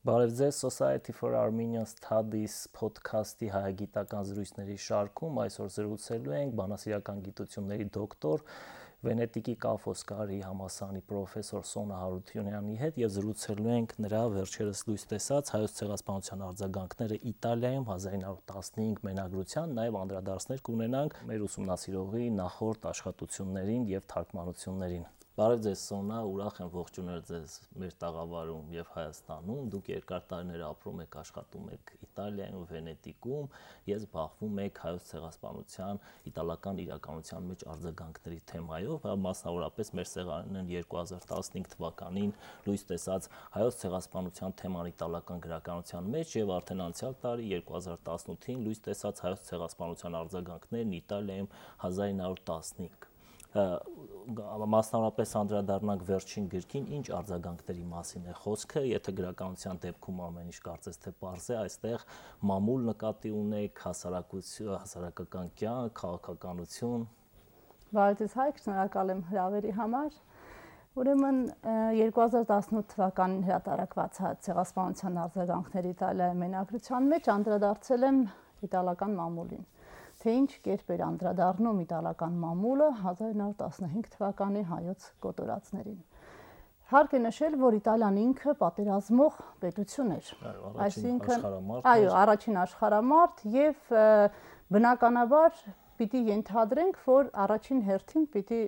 Բարև ձեզ Society for Armenian Studies podcast-ի հայագիտական զրույցների շարքում այսօր զրուցելու ենք բանասիրական գիտությունների դոկտոր Վենետիկի Կաֆոսկարի համալսարանի պրոֆեսոր Սոնա Հարությունյանի հետ եւ զրուցելու ենք նրա վերջերս լույս տեսած հայոց ցեղասպանության արձագանքները Իտալիայում 1915 մենագրության, նաեւ անդրադարձներ կունենանք մեր ուսումնասիրողի նախորդ աշխատություններին եւ թարգմանություններին։ Բարև ձեզ Սոնա, ուրախ եմ ողջունել ձեզ մեր տաղավարում եւ Հայաստանում։ Դուք երկար տարիներ ապրում եք, աշխատում եք Իտալիայում, Վենետիկում, ես զբաղվում եք հայոց ցեղասպանության իտալական իրականության մեջ արձագանքների թեմայով, մասնավորապես մեր սեղանն 2015 թվականին լույս տեսած հայոց ցեղասպանության թեման իտալական գրականության մեջ եւ արդեն անցյալ տարի 2018-ին լույս տեսած հայոց ցեղասպանության արձագանքներն Իտալիայում 1915 մասնավորապես անդրադառնանք վերջին գրքին, ինչ արձագանքների մասին է խոսքը, եթե գրականության դեպքում ամեն ինչ կարծես թե պարզ է, այստեղ մամուլ նկատի ունեք, հասարակական կյանք, քաղաքականություն։ Բարև ձեզ Հայկ, շնորհակալ եմ հրավերի համար։ Ուրեմն 2018 թվականին հրատարակված ցեղասպանության արձագանքների Իտալիայի մենագրության մեջ անդրադարձել եմ իտալական մամուլին։ Թե ինչ կերպ էր անդրադառնում իտալական մամուլը 1915 թվականի հայոց կոտորածներին։ Հարկ է նշել, որ Իտալիան ինքը պատերազմող պետություն էր։ Այսինքն, առաջին աշխարհամարտ եւ բնականաբար պիտի ենթադրենք, որ առաջին հերթին պիտի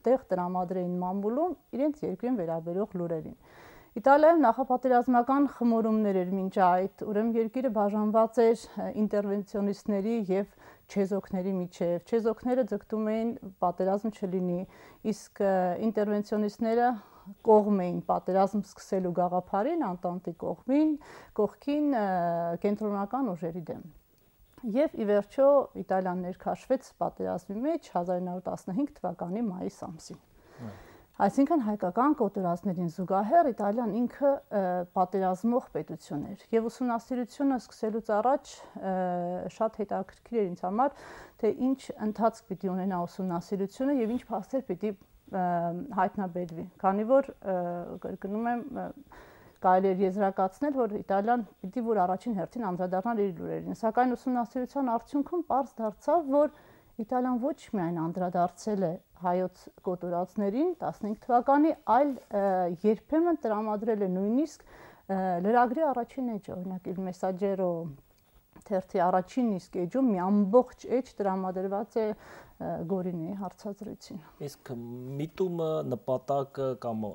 տեղ տրամադրեին մամուլում իրենց երկրին վերաբերող լուրերին։ Իտալիայում նախապատերազմական խմորումներ էր մինչ այդ, ուրեմն երկիրը բաժանված էր ինտերվենցիոնիստների եւ չեզոքների միջև։ Չեզոքները ձգտում էին պատերազմ չլինի, իսկ ինտերվենցիոնիստները կողմ էին պատերազմ սկսելու գաղափարին, Անտանտի կողքին կենտրոնական ուժերի դեմ։ Եվ ի վերջո Իտալիան ներքաշվեց պատերազմի մեջ 1915 թվականի մայիս ամսին։ Այսինքն հայկական կոտորածներին զուգահեռ Իտալիան ինքը պատերազմող պետություն էր եւ ուսումնասիրությունը սկսելուց առաջ շատ հետաքրքիր էր ինձ համար, թե ինչ ընթացք պիտի ունենա ուսումնասիրությունը եւ ինչ փաստեր պիտի հայտնաբերվի, քանի որ կրկնում եմ կարելի է եզրակացնել, որ Իտալիան պիտի որ առաջին հերթին անդրադառնար իր լուրերին, սակայն ուսումնասիրության արդյունքում պարզ դարձավ, որ Իտալիան ոչ միայն անդրադարձել է հայոց կոտորածներին 15 թվականի, այլ երբեմն տրամադրել է նույնիսկ լրագրի առաջին էջը, օրինակ Il Messaggero թերթի առաջին իսկ էջում մի ամբողջ էջ տրամադրված է Գորինեի հարցազրույցին։ Իսկ միտումը նպատակը կամ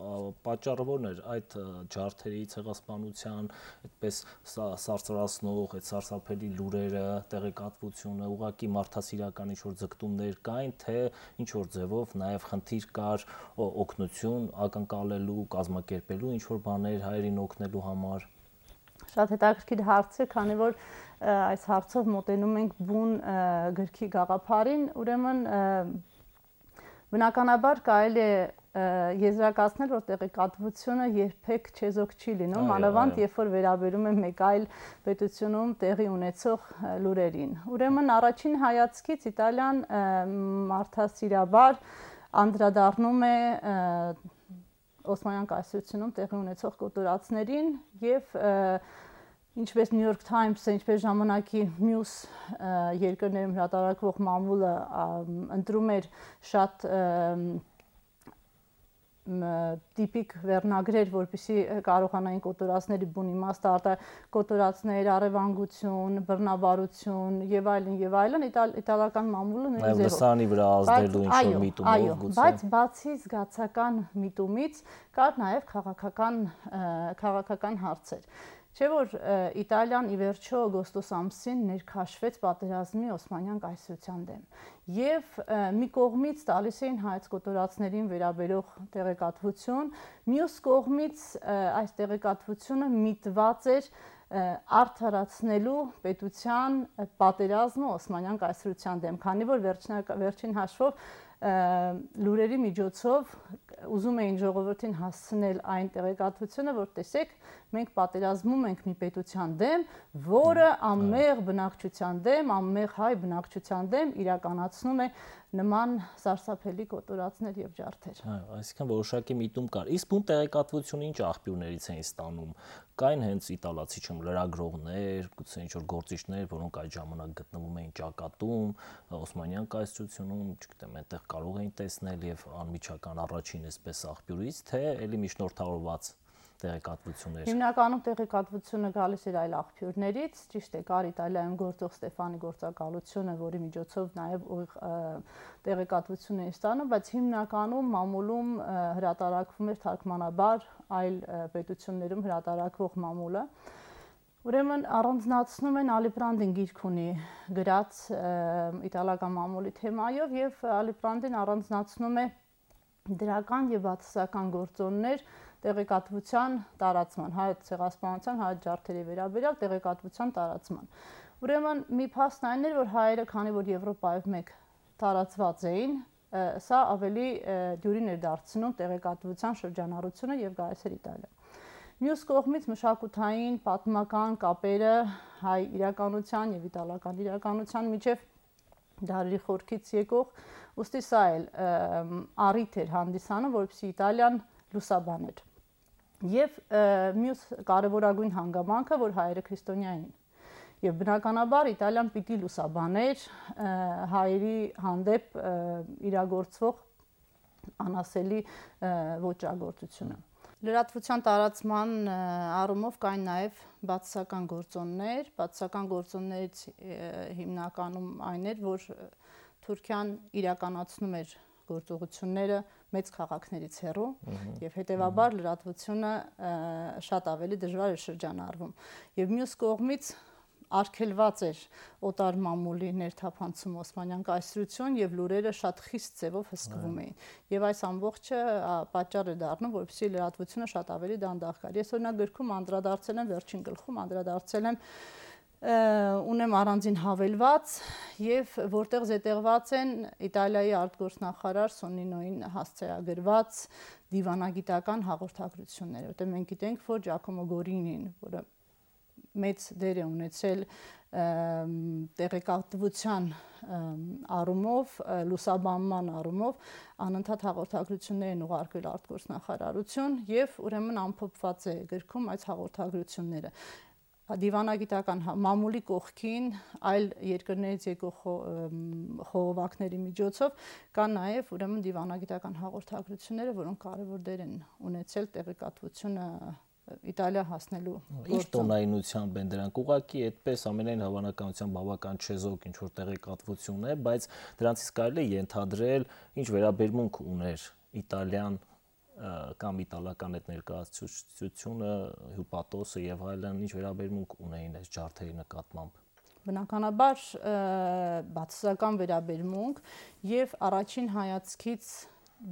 պատճառը ո՞րն էր այդ ջարդերի ցեղասպանության, այդպես սարսռացնող, այդ սարսափելի լուրերը, տեղեկատվությունը, ուղղակի մարդասիրական ինչ-որ ձգտումներ կային, թե ինչ-որ ձևով նաև խնդիր կար օգնություն ակնկալելու, կազմակերպելու ինչ-որ բաներ հայերին օգնելու համար։ Շատ հետաքրքիր հարց է, քանի որ այս հարցով մոտենում ենք բուն գրքի գաղափարին, ուրեմն բնականաբար կարելի է եզրակացնել, որ տեղեկատվությունը երբեք չեզոք չի լինում, մանավանդ երբ որ վերաբերում է մեկ այլ պետությունում տեղի ունեցող լուրերին։ Ուրեմն առաջին հայացքից Իտալիան մարդասիրաբար անդրադառնում է Օսմանյան կայսրությունում տեղի ունեցող կոտորածներին եւ ինչպես New York Times-ը, ինչպես ժամանակի մյուս երկրներում հրատարակվող մամուլը ընտրում էր շատ տիպիկ վերնագրեր, որպեսզի կարողանային կոտորածների բուն իմաստը կոտորածներ, առևանգություն, բռնաբարություն եւ այլն, իտալական մամուլը նույնիսկ լսանի վրա ազդելու ինչ-որ միտումով գուցե։ Բայց բացի զգացական միտումից կար նաեւ քաղաքական հարցեր։ Չէ՞ որ Իտալիան ի վերջո օգոստոս ամսին ներքաշվեց պատերազմի Օսմանյան կայսրության դեմ եւ մի կողմից տալիս էին հայոց կոտորածներին վերաբերող տեղեկատվություն, մյուս կողմից այս տեղեկատվությունը միտված էր արդարացնելու պետության պատերազմը Օսմանյան կայսրության դեմ, քանի որ վերջին հաշվով լուրերի միջոցով ուզում էին ժողովրդին հասցնել այն տեղեկատվությունը, որ տեսեք, մենք պատերազմում ենք մի պետության դեմ, որը անմեղ բնակչության դեմ, անմեղ հայ բնակչության դեմ իրականացնում է նման սարսափելի կոտորածներ եւ ջարդեր։ Այսինքն որոշակի միտում կար։ Իսկ բուն տեղեկատվությունը ինչ աղբյուրներից էին ստանում։ Կային հենց իտալացի լրագրողներ, գուցե ինչ-որ գործիչներ, որոնք այդ ժամանակ գտնվում էին ճակատում, Օսմանյան կայսրությունում, չգիտեմ, այնտեղ կարող էին տեսնել եւ անմիջական առաջին այսպես աղբյուրից, թե ելի միջնորդավորված տեղեկատվություններ։ Հիմնականում տեղեկատվությունը գալիս էր այլ աղբյուրներից, ճիշտ է, կար Իտալիայում գործող Ստեֆանի գործակալությունը, որի միջոցով նաև տեղեկատվություն էին ստանում, բայց հիմնականում մամուլում հրատարակվում էր թարգմանաբար այլ պետություններում հրատարակվող մամուլը։ Ուրեմն առանձնացնում են Ալիպրանդին գիրք ունի գրած իտալական մամուլի թեմայով եւ Ալիպրանդին առանձնացնում է դրական եւ բացասական գործոններ տեղեկատվության տարածման, հայոց ցեղասպանության, հայոց ջարդերի վերաբերյալ տեղեկատվության տարածման։ Ուրեմն մի փաստն այն էր, որ հայերը, քանի որ Եվրոպայով մեկ տարածված էին, սա ավելի դյուրին էր դարձնում տեղեկատվության շրջանառությունը եւ գալիս էր Իտալիա։ Մյուս կողմից մշակութային, պատմական կապերը հայ իրականության եւ իտալական իրականության միջև դարերի խորքից եկող, ուստի սա էլ առիթ էր հանդիսանում, որպեսզի Իտալիան լուսաբաներ։ Եվ մյուս կարևորագույն հանգամանքը, որ հայերը քրիստոնյա էին։ Եվ բնականաբար Իտալիան պիտի լուսաբաներ հայերի հանդեպ իրագործվող անասելի ոճրագործությունը։ Լրատվության տարածման առումով կային նաև բացասական գործոններ, բացասական գործոններից հիմնականում այն էր, որ Թուրքիան իրականացնում էր գործողությունները մեծ քաղաքներից հեռու եւ հետեւաբար լրատվությունը շատ ավելի դժվար էր շրջանառվում եւ մյուս կողմից արգելված էր օտար մամուլի ներթափանցում Օսմանյան կայսրություն եւ լուրերը շատ խիստ ձևով հսկվում էին եւ այս ամբողջը պատճառ է դառնում որպեսզի լրատվությունը շատ ավելի դանդաղ գար։ Ես օրինակ գրքում անդրադարձել եմ վերջին գլխում անդրադարձել եմ ունեմ առանձին հավելված եւ որտեղ զետեղված են Իտալիայի արտգործնախարար Սոնինոին հասցեագրված դիվանագիտական հաղորդագրությունները, որտեղ մենք գիտենք, որ Ջակոմո Գորինին, որը մեծ դեր է ունեցել տեղեկատվության առումով, լուսաբանման առումով անընդհատ հաղորդագրություններ են ուղարկել արտգործնախարարություն եւ ուրեմն ամփոփված է գրքում այս հաղորդագրությունները դիվանագիտական մամուլի կողքին այլ երկրներից եկող խողովակների միջոցով կան նաև ուրեմն դիվանագիտական հաղորդագրությունները, որոնք կարևոր դեր են ունեցել տեղեկատվությունը Իտալիա հասնելու գործում։ Ինչ տոնայնությամբ են դրանք ուղղակի այդպես ամենայն հավանականությամբ բավական չեզոք ինչ որ տեղեկատվություն է, բայց դրանցից կարելի է ենթադրել ինչ վերաբերմունք ուներ Իտալիան կամ իտալական այդ ներկայացուցչությունը, հյուպատոսը եւ այլն ինչ վերաբերմունք ունեին այս ջարդերի նկատմամբ։ Բնականաբար բացասական վերաբերմունք եւ առաջին հայացքից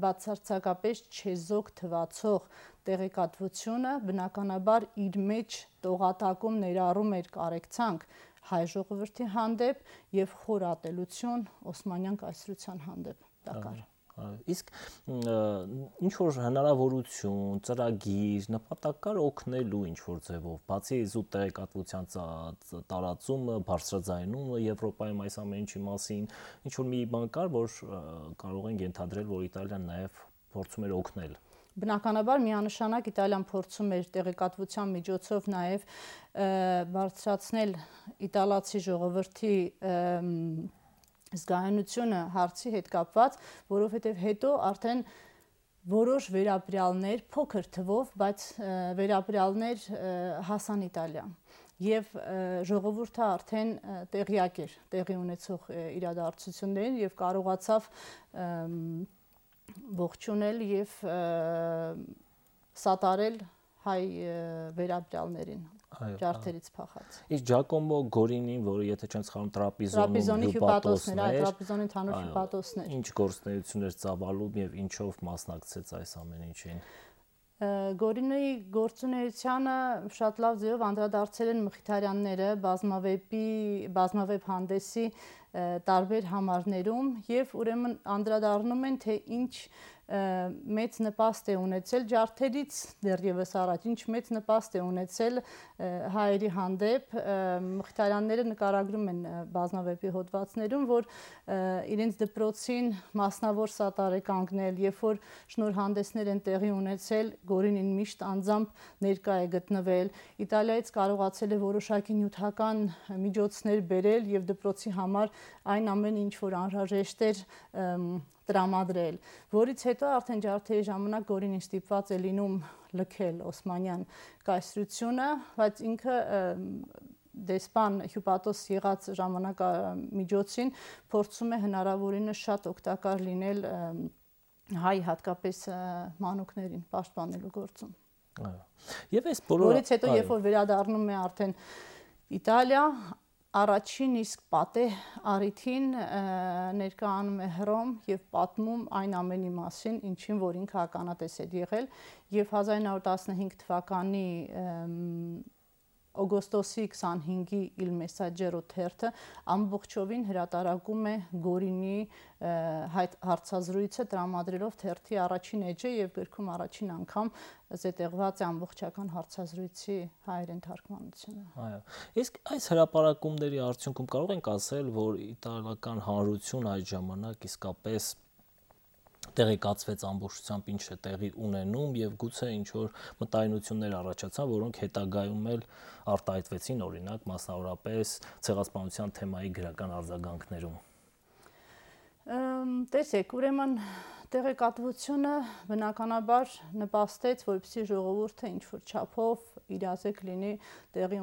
բացարձակապես չեզոք թվացող տեղեկատվությունը բնականաբար իր մեջ տողատակում ներառում էր կարեկցանք հայ ժողովրդի հանդեպ եւ խոր ատելություն Օսմանյան կայսրության հանդեպ տակար։ Իսկ ինչ որ հնարավորություն, ծրագիր, նպատակ կար օգնելու ինչ որ ձևով, բացի զուտ տեղեկատվության տարածումը, բարձրաձայնումը Եվրոպայում այս ամեն ինչի մասին, ինչ որ մի բան կար, որ կարող են ենթադրել, որ Իտալիան նաև փորձում էր օգնել։ Բնականաբար միանշանակ Իտալիան փորձում էր տեղեկատվության միջոցով նաև բարձրացնել իտալացի ժողովրդի զգայունությունը հարցի հետ կապված, որովհետև հետո արդեն որոշ վերապրյալներ, փոքր թվով, բայց վերապրյալներ հասան Իտալիա եւ ժողովուրդը արդեն տեղյակ էր տեղի ունեցող իրադարձություններին եւ կարողացավ ողջունել եւ սատարել հայ վերապրյալներին ջարդերից փախած։ Իսկ Ջակոմո Գորինին, որը եթե չեմ սխալվում Տրապիզոնում հյուպատոսն էր, Տրապիզոնի ընդհանուր հյուպատոսն էր։ Ինչ գործունեություններ ծավալում եւ ինչով մասնակցեց այս ամեն ինչին։ Գորինոյի գործունեությանը շատ լավ ձևով անդրադարձել են Մխիթարյանները բազմավեբ հանդեսի տարբեր համարներում եւ ուրեմն անդրադառնում են թե ինչ մեծ նպաստ է ունեցել ջարդերից դեռևս առաջ, ինչ մեծ նպաստ է ունեցել հայերի հանդեպ Մխիթարյանները նկարագրում են բազմավեպի հոդվածներում, որ իրենց դպրոցին մասնավոր սատար է կանգնել, երբ որ շնորհանդեսներ են տեղի ունեցել, Գորինին միշտ անձամբ ներկա է գտնվել, Իտալիայից կարողացել է որոշակի նյութական միջոցներ բերել եւ դպրոցի համար այն ամեն ինչ որ անհրաժեշտ էր տրամադրել, որից հետո արդեն ջարդերի ժամանակ Գորինին ստիպված է լինում լքել Օսմանյան կայսրությունը, բայց ինքը դեսպան Հյուպատոս եղած ժամանակամիջոցին փորձում է հնարավորինս շատ օգտակար լինել հայ հատկապես մանուկներին պաշտպանելու գործում։ Եվ այս բոլորը որից հետո երբ որ վերադառնում է արդեն Իտալիա, առաջին իսկ պատե առիթին ներկայանում է Հռոմ եւ պատմում այն ամենի մասին, ինչին որ ինքը ականատես էր եղել եւ 1915 թվականի օգոստոսի 25-ի Il Messaggero թերթը ամբողջովին հրատարակում է Գորինի հարցազրույցը տրամադրելով թերթի առաջին էջը եւ գրքում առաջին անգամ զետեղված է ամբողջական հարցազրույցի հայերեն թարգմանությունը։ Այո։ Իսկ այս հրապարակումների արդյունքում կարող ենք ասել, որ իտալական հանրություն այդ ժամանակ իսկապես տեղեկացվեց ամբողջությամբ ինչ է տեղի ունենում եւ գուցե ինչ որ մտայնություններ առաջացան, որոնք հետագայում էլ արտահայտվեցին, օրինակ, մասնավորապես ցեղասպանության թեմայի գրական արձագանքներում։ Տեսեք, ուրեմն տեղեկատվությունը բնականաբար նպաստեց, որպեսզի ժողովուրդը ինչ որ չափով իրազեկ լինի տեղի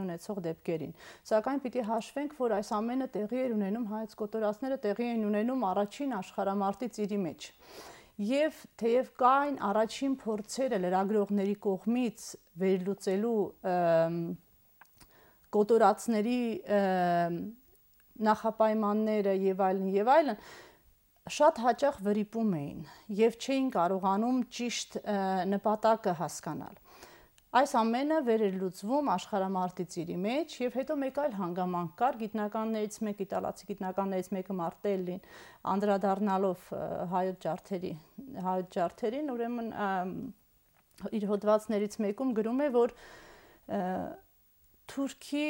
ունեցող դեպքերին։ Սակայն պիտի հաշվենք, որ այս ամենը տեղի էր ունենում հայոց կոտորածները տեղի են ունենում առաջին աշխարհամարտի ծիրի մեջ։ Եվ թեև կային առաջին փորձերը լրագրողների կողմից վերլուծելու կոտորածների նախապայմանները եւ այլն, շատ հաճախ վրիպում էին եւ չէին կարողանում ճիշտ նպատակը հասկանալ։ Այս ամենը վերելուծվում աշխարհամարտի ծիրի մեջ եւ հետո մեկ այլ հանգամանք կար գիտնականներից մեկ իտալացի գիտնականներից մեկը Մարտելլին անդրադառնալով հայոց ջարդերին, ուրեմն իր հոդվածներից մեկում գրում է, որ Թուրքի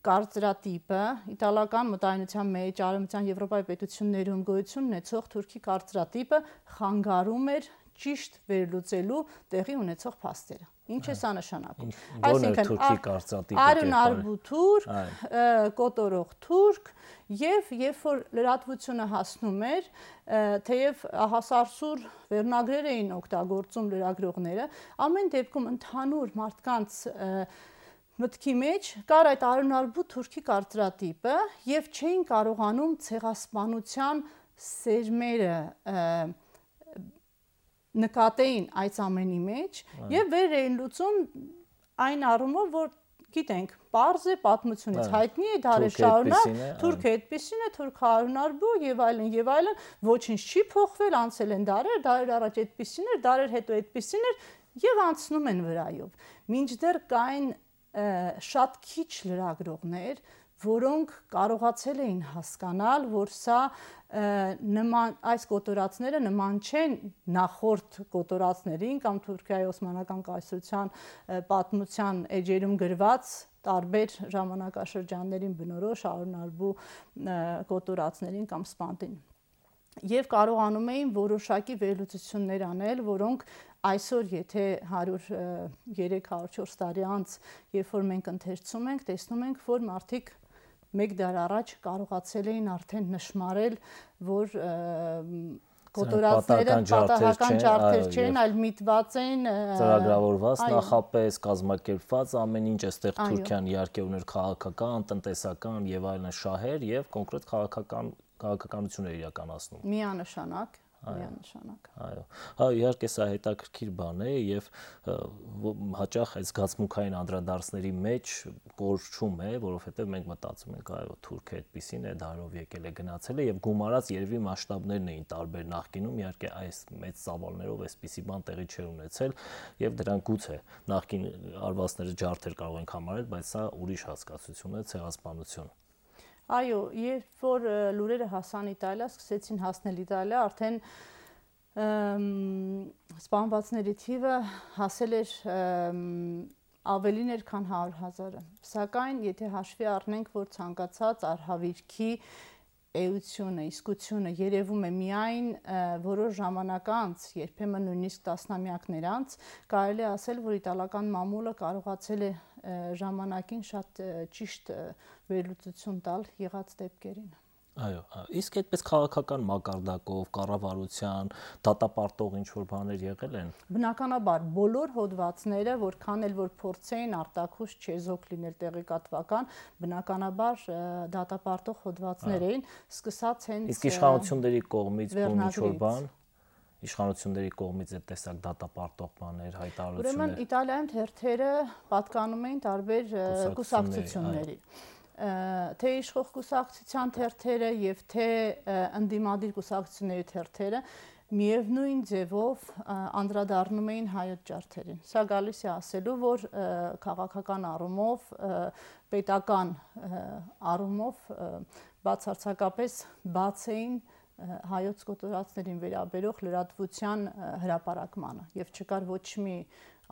կարծրատիպը իտալական մտայնության մեջ արևմտյան Եվրոպայի պետություններում գոյություն ունեցող Թուրքի կարծրատիպը խանգարում էր ճիշտ վերլուծելու տեղի ունեցող փաստերը։ Ինչ է սա նշանակում։ Այսինքն Թուրքի կարծրատիպը արյունարբու թուրք, կոտորող թուրք եւ երբ որ լրատվությունը հասնում էր, թեև հասարսուր վերնագրեր էին օգտագործում լրագրողները, ամեն դեպքում ընդհանուր մարդկանց մտքի մեջ կար այդ արյունարբու թուրքի կարծրատիպը եւ չէին կարողանում ցեղասպանության սերմերը նկատեին այս ամենի մեջ եւ վեր էին լուծում այն առումով, որ գիտենք, պարզ է պատմությունից հայտնի է դարեր շարունակ, թուրքը այդպեսին է, թուրքը արյունարբու եւ այլն, ոչինչ չի փոխվել, անցել են դարեր առաջ այդպեսին էր, դարեր հետո այդպեսին էր եւ անցնում են վրայով։ Մինչդեռ կային շատ քիչ լրագրողներ, որոնք կարողացել էին հասկանալ, որ սա այս կոտորածները նման չեն նախորդ կոտորածներին կամ Թուրքիայի Օսմանական կայսրության պատմության էջերում գրված տարբեր ժամանակաշրջաններին բնորոշ արյունարբու կոտորածներին կամ սպանդին։ Եվ կարողանում էին որոշակի վերլուծություններ անել, որոնք այսօր եթե 100-300-400 տարի անց, երբ որ մենք ընթերցում ենք, տեսնում ենք, որ մարդիկ մեկ դար առաջ կարողացել էին արդեն նշмарել, որ կոտորածները պատահական ջարդեր չեն, այլ միտված են ծրագրավորված, նախապես կազմակերպված, ամեն ինչ այստեղ Թուրքիան իհարկե ուներ քաղաքական, տնտեսական եւ այլն շահեր եւ կոնկրետ քաղաքականություն էր իրականացնում։ Միանշանակ միանշանակ։ Այո։ Հա, իհարկե սա հետաքրքիր բան է եւ հաճախ այս զգացմունքային անդրադարձների մեջ կորչում է, որովհետեւ մենք մտածում ենք, այո, Թուրքը այդպեսին է, դարով եկել է, գնացել է եւ գումարած երևի մասշտաբներն էին տարբեր նախկինում, իհարկե այս մեծ ծավալներով այսպիսի բան տեղի չէր ունեցել եւ դրանք գուցե նախկին արվածները ջարդեր կարող ենք համարել, բայց սա ուրիշ հասկացություն է, ցեղասպանություն։ Այո, երբ որ լուրերը հասան Իտալիա, սկսեցին հասնել Իտալիա, արդեն սպանվածների թիվը հասել էր ավելին էր, քան 100,000-ը։ Սակայն, եթե հաշվի առնենք, որ ցանկացած արհավիրքի էությունը, իսկությունը երևում է միայն որոշ ժամանակ անց, երբեմն նույնիսկ տասնամյակներ անց, կարելի է ասել, որ իտալական մամուլը կարողացել է ժամանակին շատ ճիշտ վերլուծություն տալ եղած դեպքերին։ Այո, իսկ այդպես քաղաքական մակարդակով, կառավարության, դատապարտող ինչ-որ բաներ եղել են։ Բնականաբար, բոլոր հոդվածները, որքան էլ որ փորձեին արտաքուշ չեզոք լինել տեղեկատվական, բնականաբար դատապարտող հոդվածներ էին, սկսած հենց իսկ իշխանությունների կողմից ինչ-որ բան, իշխանությունների կողմից այդ տեսակ դատապարտող բաներ, հայտարարություններ։ Ուրեմն Իտալիայում թերթերը պատկանում էին տարբեր կուսակցությունների։ Թե իշխող կուսակցության թերթերը եւ թե ընդդիմադիր կուսակցությունների թերթերը միևնույն ձևով անդրադառնում էին հայոց ջարդերին։ Սա գալիս է ասելու, որ քաղաքական առումով, պետական առումով բացարձակապես բաց էին հայոց կոտորածներին վերաբերող լրատվության հրապարակմանը եւ չկար ոչ մի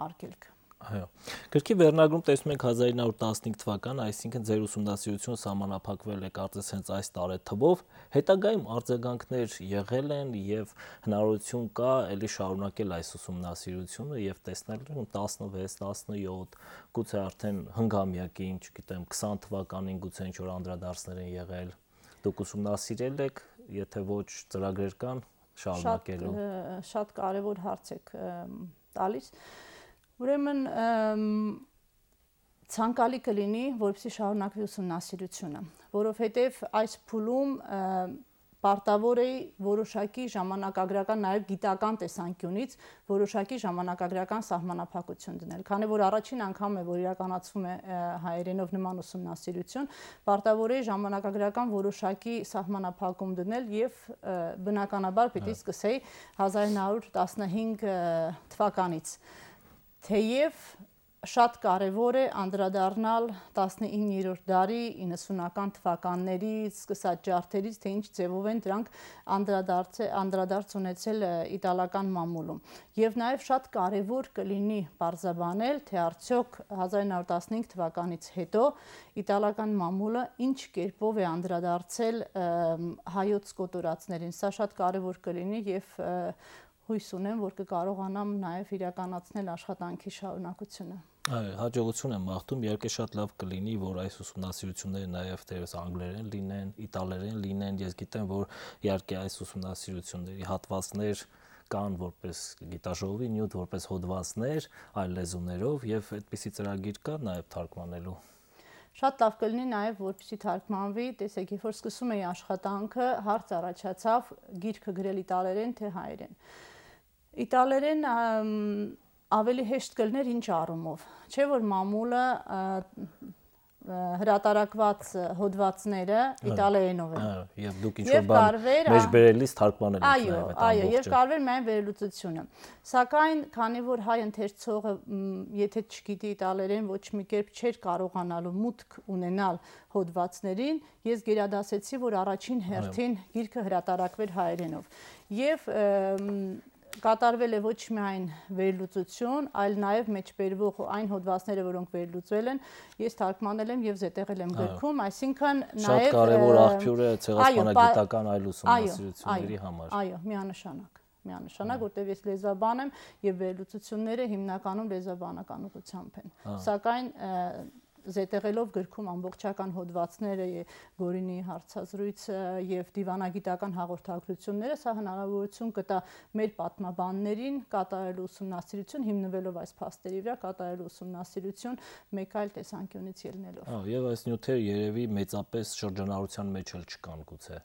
արգելք։ Այո։ Գրքի վերնագրում տեսնում ենք 1915 թվական, այսինքն ձեր ուսումնասիրությունը սահմանափակվել է կարծես հենց այս տարեթվով, հետագայում արձագանքներ եղել են եւ հնարավորություն կա ելի շարունակել այս ուսումնասիրությունը եւ տեսնել 16, 17, գուցե արդեն հնգամյակին, չգիտեմ, 20 թվականին գուցե ինչ-որ անդրադարձներ են եղել։ Դուք ուսումնասիրել եք, եթե ոչ ծրագրեր կան շարունակելու։ Շատ կարևոր հարց եք տալիս։ Ուրեմն ցանկալի կլինի, որպեսզի շարունակվի ուսումնասիրությունը, որովհետև այս փուլում պարտավոր է որոշակի ժամանակագրական, նաև գիտական տեսանկյունից որոշակի ժամանակագրական սահմանափակություն դնել, քանի որ առաջին անգամ է, որ իրականացվում է հայերենով նման ուսումնասիրություն, պարտավոր է ժամանակագրական որոշակի սահմանափակում դնել եւ բնականաբար պիտի սկսեի 1915 թվականից։ Թեև շատ կարևոր է անդրադառնալ 19-րդ դարի 90-ական թվականներից սկսած ջարդերից, թե ինչ ձևով են դրանք անդրադարձ ունեցել իտալական մամուլում։ Եվ նաև շատ կարևոր կլինի պարզաբանել, թե արդյոք 1915 թվականից հետո իտալական մամուլը ինչ կերպով է անդրադարձել հայոց կոտորածներին։ Սա շատ կարևոր կլինի եւ հույս ունեմ, որ կկարողանամ նաև իրականացնել աշխատանքի շարունակությունը։ Այո, հաջողություն եմ մաղթում, իհարկե շատ լավ կլինի, որ այս ուսումնասիրությունները նաև դերս անգլերեն լինեն, իտալերեն լինեն, ես գիտեմ, որ իհարկե այս ուսումնասիրությունների հատվածներ կան որպես գիտաժողովի նյութ, որպես հոդվածներ այլ լեզուներով եւ այդպիսի ծրագիր կա նաև թարգմանելու։ Շատ լավ կլինի նաև, որպեսզի թարգմանվի, տեսեք, երբ որ սկսում էի աշխատանքը, հարց առաջացավ գիրքը գրել իտալերեն թե հայերեն։ Իտալերեն ավելի հեշտ կլներ ինչ առումով, չէ՞ որ մամուլը հրատարակված հոդվածները իտալերենով են։ Այո, եւ դուք ինչ-որ բան մեջ բերելիս թարգմանել եք նաև այդ ամբողջը։ Այո, եւ կարվեր միայն վերլուծությունը։ Սակայն, քանի որ հայ ընթերցողը, եթե չգիտի իտալերեն, ոչ մի կերպ չէր կարողանալու մուտք ունենալ հոդվածներին, ես գերադասեցի, որ առաջին հերթին գիրքը հրատարակվեր հայերենով։ Եվ կատարվել է ոչ միայն վերլուծություն, այլ նաև մեջբերվող այն հոդվածները, որոնք վերլուծվել են, ես թարգմանել եմ եւ զետեղել եմ գրքում, այսինքն նաև շատ կարևոր աղբյուր է ցեղասպանագիտական այլ ուսումնասիրությունների համար։ Այո, միանշանակ, որտեղ ես լեզվաբան եմ եւ վերլուծությունները հիմնականում լեզվաբանական ուղղությամբ են։ Սակայն զետեղելով գրքում ամբողջական հոդվածները, Գորինի հարցազրույցը եւ դիվանագիտական հաղորդագրությունները, սա հնարավորություն կտա մեր պատմաբաններին կատարելու ուսումնասիրություն, հիմնվելով այս փաստերի վրա կատարելու ուսումնասիրություն մեկ այլ տեսանկյունից ելնելով։ Եվ այս նյութերը երևի մեծապես շրջանառության մեջ էլ չկան գուցե։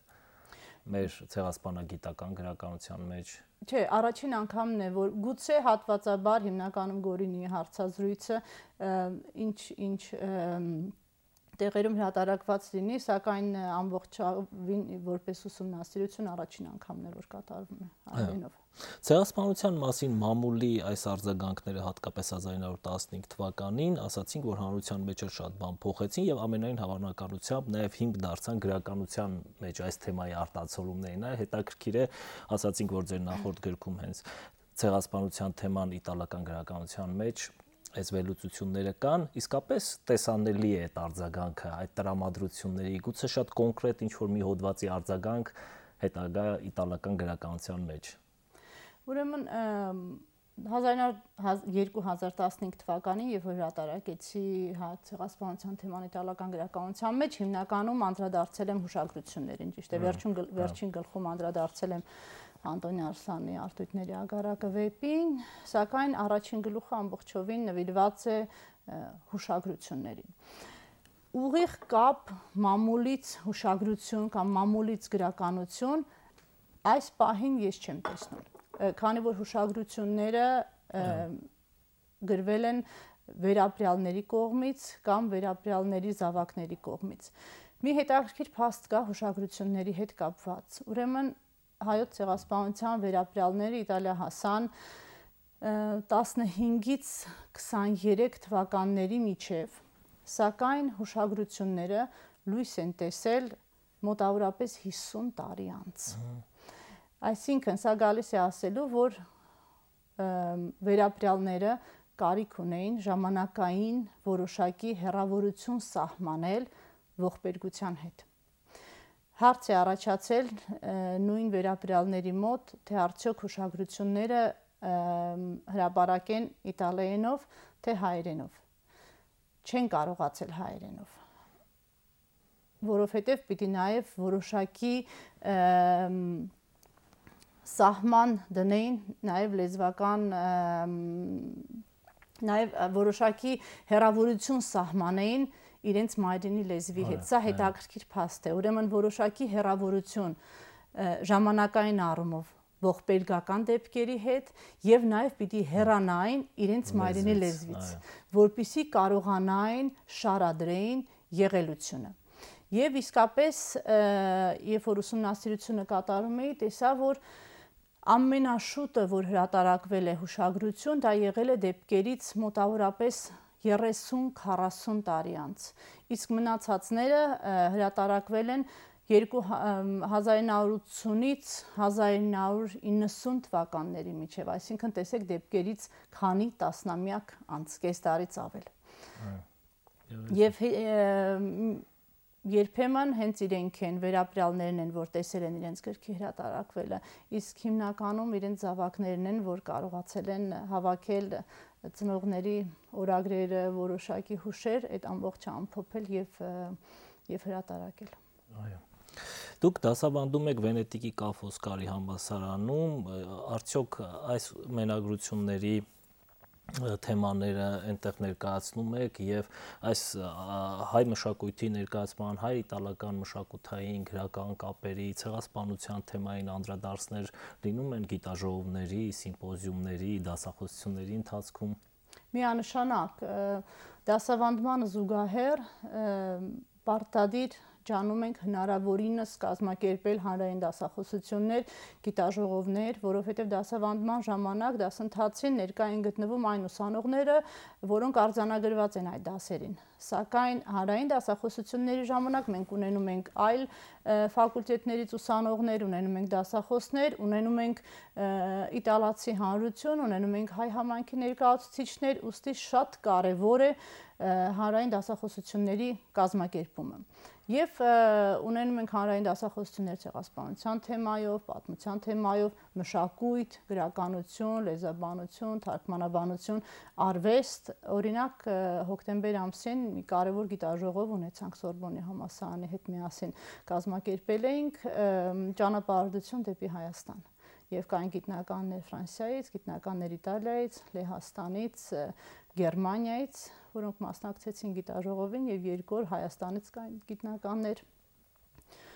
մեր ցեղասպանագիտական գրականության մեջ։ Չէ, առաջին անգամն է, որ գուցե հատվածաբար հիմնականում Գորինի հարցազրույցը ինչ տեղերում հրատարակված լինի, սակայն ամբողջովին որպես ուսումնասիրություն առաջին անգամն է, որ կատարվում է հայերենով։ Ցեղասպանության մասին մամուլի այս արձագանքները հատկապես 1915 թվականին ասացինք, որ հանրության մեջ շատ բան փոխեցին եւ ամենայն հավանականությամբ նաեւ հիմք դարձան գրականության մեջ այս թեմայի արտացոլումներին։ Հետաքրքիր է, ասացինք, որ ձեր նախորդ գրքում հենց ցեղասպանության թեման իտալական գրականության մեջ այս վերլուծությունները կան, իսկապես տեսանելի է այդ արձագանքը, այդ տրամադրությունների, գուցե շատ կոնկրետ ինչ-որ մի հոդվածի արձագանք հետագա իտալական գրականության մեջ։ Ուրեմն 2015 թվականին, երբ որ հրատարակեցի ցեղասպանության թեման իտալական գրականության մեջ, հիմնականում անդրադարձել եմ հուշագրություններին, ճիշտ է, վերջին գլխում անդրադարձել եմ Անտոնի Արսլանի Արտույտների ագարակը վեպին, սակայն առաջին գլուխը ամբողջովին նվիրված է հուշագրություններին։ Ուղիղ կապ մամուլից հուշագրություն կամ մամուլից գրականություն այս պահին ես չեմ տեսնում, քանի որ հուշագրությունները գրվել են վերապրյալների կողմից կամ վերապրյալների զավակների կողմից։ Մի հետաքրքիր փաստ կա հուշագրությունների հետ կապված։ Ուրեմն հայոց ցեղասպանության վերապրյալները Իտալիա հասան 15-ից 23 թվականների միջև, սակայն հուշագրությունները լույս են տեսել մոտավորապես 50 տարի անց։ Այսինքն սա գալիս է ասելու, որ վերապրյալները կարիք ունեին ժամանակային որոշակի հեռավորություն սահմանել ողբերգության հետ։ Հարց է առաջացել նույն վերապրյալների մոտ, թե արդյոք հուշագրությունները հրապարակեն իտալերենով, թե հայերենով։ Չեն կարողացել հայերենով, որովհետև պիտի նաև որոշակի սահման դնեին, նաև լեզվական, նաև որոշակի հեռավորություն սահմանեին իրենց մայրենի լեզվի հետ։ Սա հետաքրքիր փաստ է։ Ուրեմն որոշակի հեռավորություն ժամանակային առումով ողբերգական դեպքերի հետ եւ նաեւ պիտի հեռանային իրենց մայրենի լեզվից, որպիսի կարողանային շարադրեին եղելությունը։ Եվ իսկապես, երբ որ ուսումնասիրությունը կատարում էի, տեսա, որ ամենաշուտը, որ հրատարակվել է հուշագրություն, դա եղել է դեպքերից մոտավորապես 30-40 տարի անց, իսկ մնացածները հրատարակվել են 1980-ից 1990 թվականների միջև, այսինքն տեսեք դեպքերից քանի տասնամյակ անց, կես տարից ավել։ Եվ երբեմն հենց իրենք են, վերապրյալներն են, որ տեսել են իրենց գրքի հրատարակվելը, իսկ հիմնականում իրենց զավակներն են, որ կարողացել են հավաքել ծնողների օրագրերը, որոշակի հուշեր, այդ ամբողջը ամփոփել եւ հրատարակել։ Այո։ Դուք դասավանդում եք Վենետիկի Կա-Ֆոսկարի համալսարանում, արդյոք այս մենագրությունների թեմաները այնտեղ ներկայացնում եք եւ այս հայ մշակույթի ներկայացման, հայ-իտալական մշակութային գրական կապերի, ցեղասպանության թեմային անդրադարձներ լինում են գիտաժողովների, սիմպոզիումների, դասախոսությունների ընթացքում։ Միանշանակ դասավանդմանը զուգահեռ պարտադիր ջանում ենք հնարավորինս կազմակերպել հանրային դասախոսություններ, գիտաժողովներ, որովհետև դասավանդման ժամանակ դասընթացին ներկա են գտնվում այն ուսանողները, որոնք արձանագրված են այդ դասերին։ Սակայն հանրային դասախոսությունների ժամանակ մենք ունենում ենք այլ ֆակուլտետներից ուսանողներ, ունենում ենք դասախոսներ, ունենում ենք իտալացի հանրություն, ունենում ենք հայ համայնքի ներկայացուցիչներ, ուստի շատ կարևոր է հանրային դասախոսությունների կազմակերպումը։ Եվ ունենում ենք հանրային դասախոսություններ ցեղասպանության թեմայով, պատմության թեմայով, մշակույթ, գրականություն, լեզվաբանություն, թարգմանաբանություն, արվեստ։ Օրինակ հոկտեմբեր ամսին մի կարևոր գիտաժողով ունեցանք Սորբոնի համալսարանի հետ միասին կազմակերպել էինք ճանապարհորդություն դեպի Հայաստան։ Եվ կային գիտնականներ Ֆրանսիայից, գիտնականներ Իտալիայից, Լեհաստանից, Գերմանիայից, որոնք մասնակցեցին գիտաժողովին, եւ երկու օր Հայաստանից կային գիտնականներ։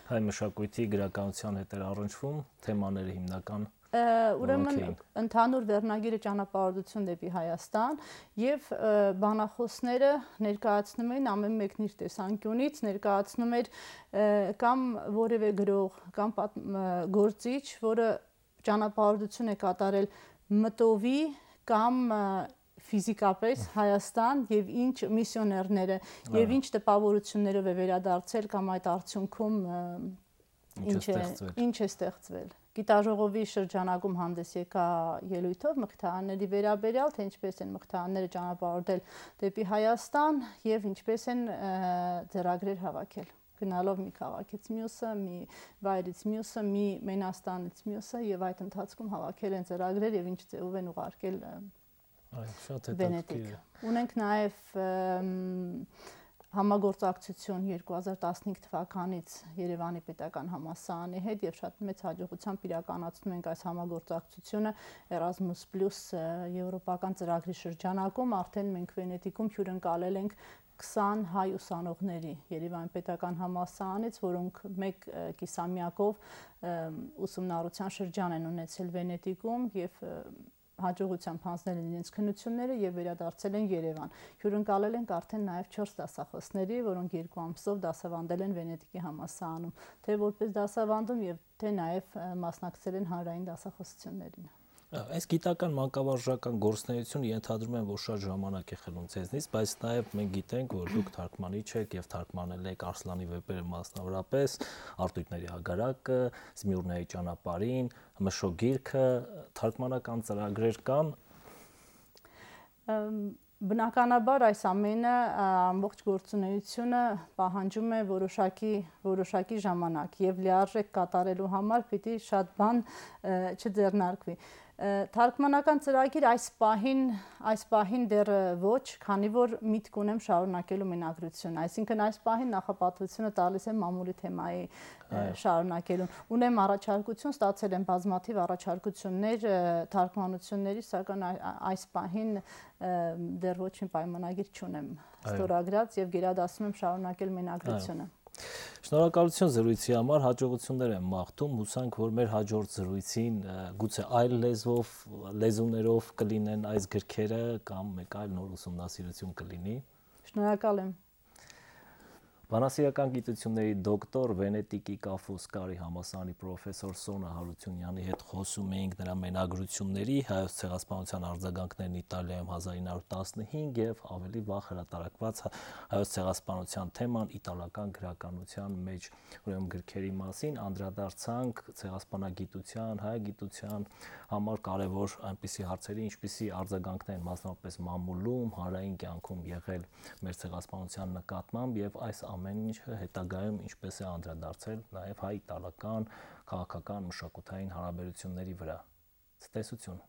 Հայ մշակույթի գրականության հետ էր առնչվում, թեմաները հիմնական ուրեմն ընդհանուր վերնագիրը ճանապարհորդություն դեպի Հայաստան եւ բանախոսները ներկայացնում էին ամեն մեկն իր տեսանկյունից, ներկայացնում էր կամ որևէ գրող կամ գործիչ, որը ճանապարհորդություն է կատարել մտովի կամ ֆիզիկապես Հայաստան եւ ինչ միսիոներները եւ ինչ տպավորություններով է վերադարձել կամ այդ արդյունքում ինչ է ստեղծվել։ Գիտաժողովի շրջանակում հանդես եկա ելույթով մխիթարանների վերաբերյալ, թե ինչպես են մխիթարանները ճանապարհորդել դեպի Հայաստան եւ ինչպես են ձեռագրեր հավաքել։ Գնալով մի քաղաքից մյուսը, մի վայրից մյուսը, մի մենաստանից մյուսը եւ այդ ընթացքում հավաքել են ձեռագրեր եւ ինչ ձևով են ուղարկել Վենետիկ։ Ունենք նաեւ համագործակցություն 2015 թվականից Երևանի պետական համալսարանի հետ եւ շատ մեծ հաջողությամբ իրականացնում ենք այս համագործակցությունը Erasmus+ եվրոպական ծրագրի շրջանակում արդեն մենք Վենետիկում հյուրընկալել ենք 20 հայ ուսանողների Երևանի պետական համալսարանից, որոնք մեկ կիսամյակով ուսումնառության շրջան են ունեցել Վենետիկում եւ հաջողությամբ հանձնել են իրենց քննությունները եւ վերադարձել են Երևան։ Հյուրընկալել ենք արդեն նաեւ 4 դասախոսների, որոնք 2 ամսով դասավանդել են Վենետիկի համալսարանում, թե որպես դասավանդում եւ թե նաեւ մասնակցել են հանրային դասախոսություններին։ Այս գիտական մանկավարժական գործունեությունը ենթադրում եմ, որ շատ ժամանակ է խլում ձեզնից, բայց նաև մենք գիտենք, որ դուք թարգմանիչ եք եւ թարգմանել եք Արսլանի վեպերը մասնավորապես, Արտույտների հագարակը, Զմիուրների ճանապարհին, Մշո գիրքը, թարգմանական ծրագրեր կան։ Բնականաբար այս ամենը ամբողջ գործունեությունը պահանջում է որոշակի ժամանակ եւ լիարժեք կատարելու համար պիտի շատ բան չձեռնարկվի։ Թարգմանական ծրագիր այս պահին դեռ ոչ, քանի որ միտք ունեմ շարունակելու մենագրությունը, այսինքն այս պահին նախապատվությունը տալիս եմ մամուլի թեմայի շարունակելուն։ Ունեմ առաջարկություն, ստացել եմ բազմաթիվ առաջարկություններ թարգմանությունների, սակայն այս պահին դեռ ոչ մի պայմանագիր չունեմ ստորագրած եւ գերադասում եմ շարունակել մենագրությունը։ Շնորհակալություն զրույցի համար, հաջողություններ եմ մաղթում, հուսանք, որ մեր հաջորդ զրույցին գուցե այլ լեզուներով կլինեն այս գրքերը կամ մեկ այլ նոր ուսումնասիրություն կլինի։ Շնորհակալ եմ։ Բանասիրական գիտությունների դոկտոր, Վենետիկի Կա Ֆոսկարի համալսարանի պրոֆեսոր Սոնա Հարությունյանի հետ խոսում էինք նրա մենագրությունների հայոց ցեղասպանության արձագանքներն Իտալիայում 1915 եւ ավելի վաղ հրատարակված հայոց ցեղասպանության թեման իտալական գրականության մեջ, ուրեմն գրքերի մասին անդրադարձանք ցեղասպանագիտության, հայ գիտության համար կարևոր այնպիսի հարցերի, ինչպիսի արձագանքներ մասնավորապես մամուլում, հանրային կյանքում եղել մեր ցեղասպանության նկատմամբ եւ այս ամեն ինչը հետագայում ինչպես է անդրադարձել նաև հայ-իտալական քաղաքական մշակութային հարաբերությունների վրա։ Ցտեսություն։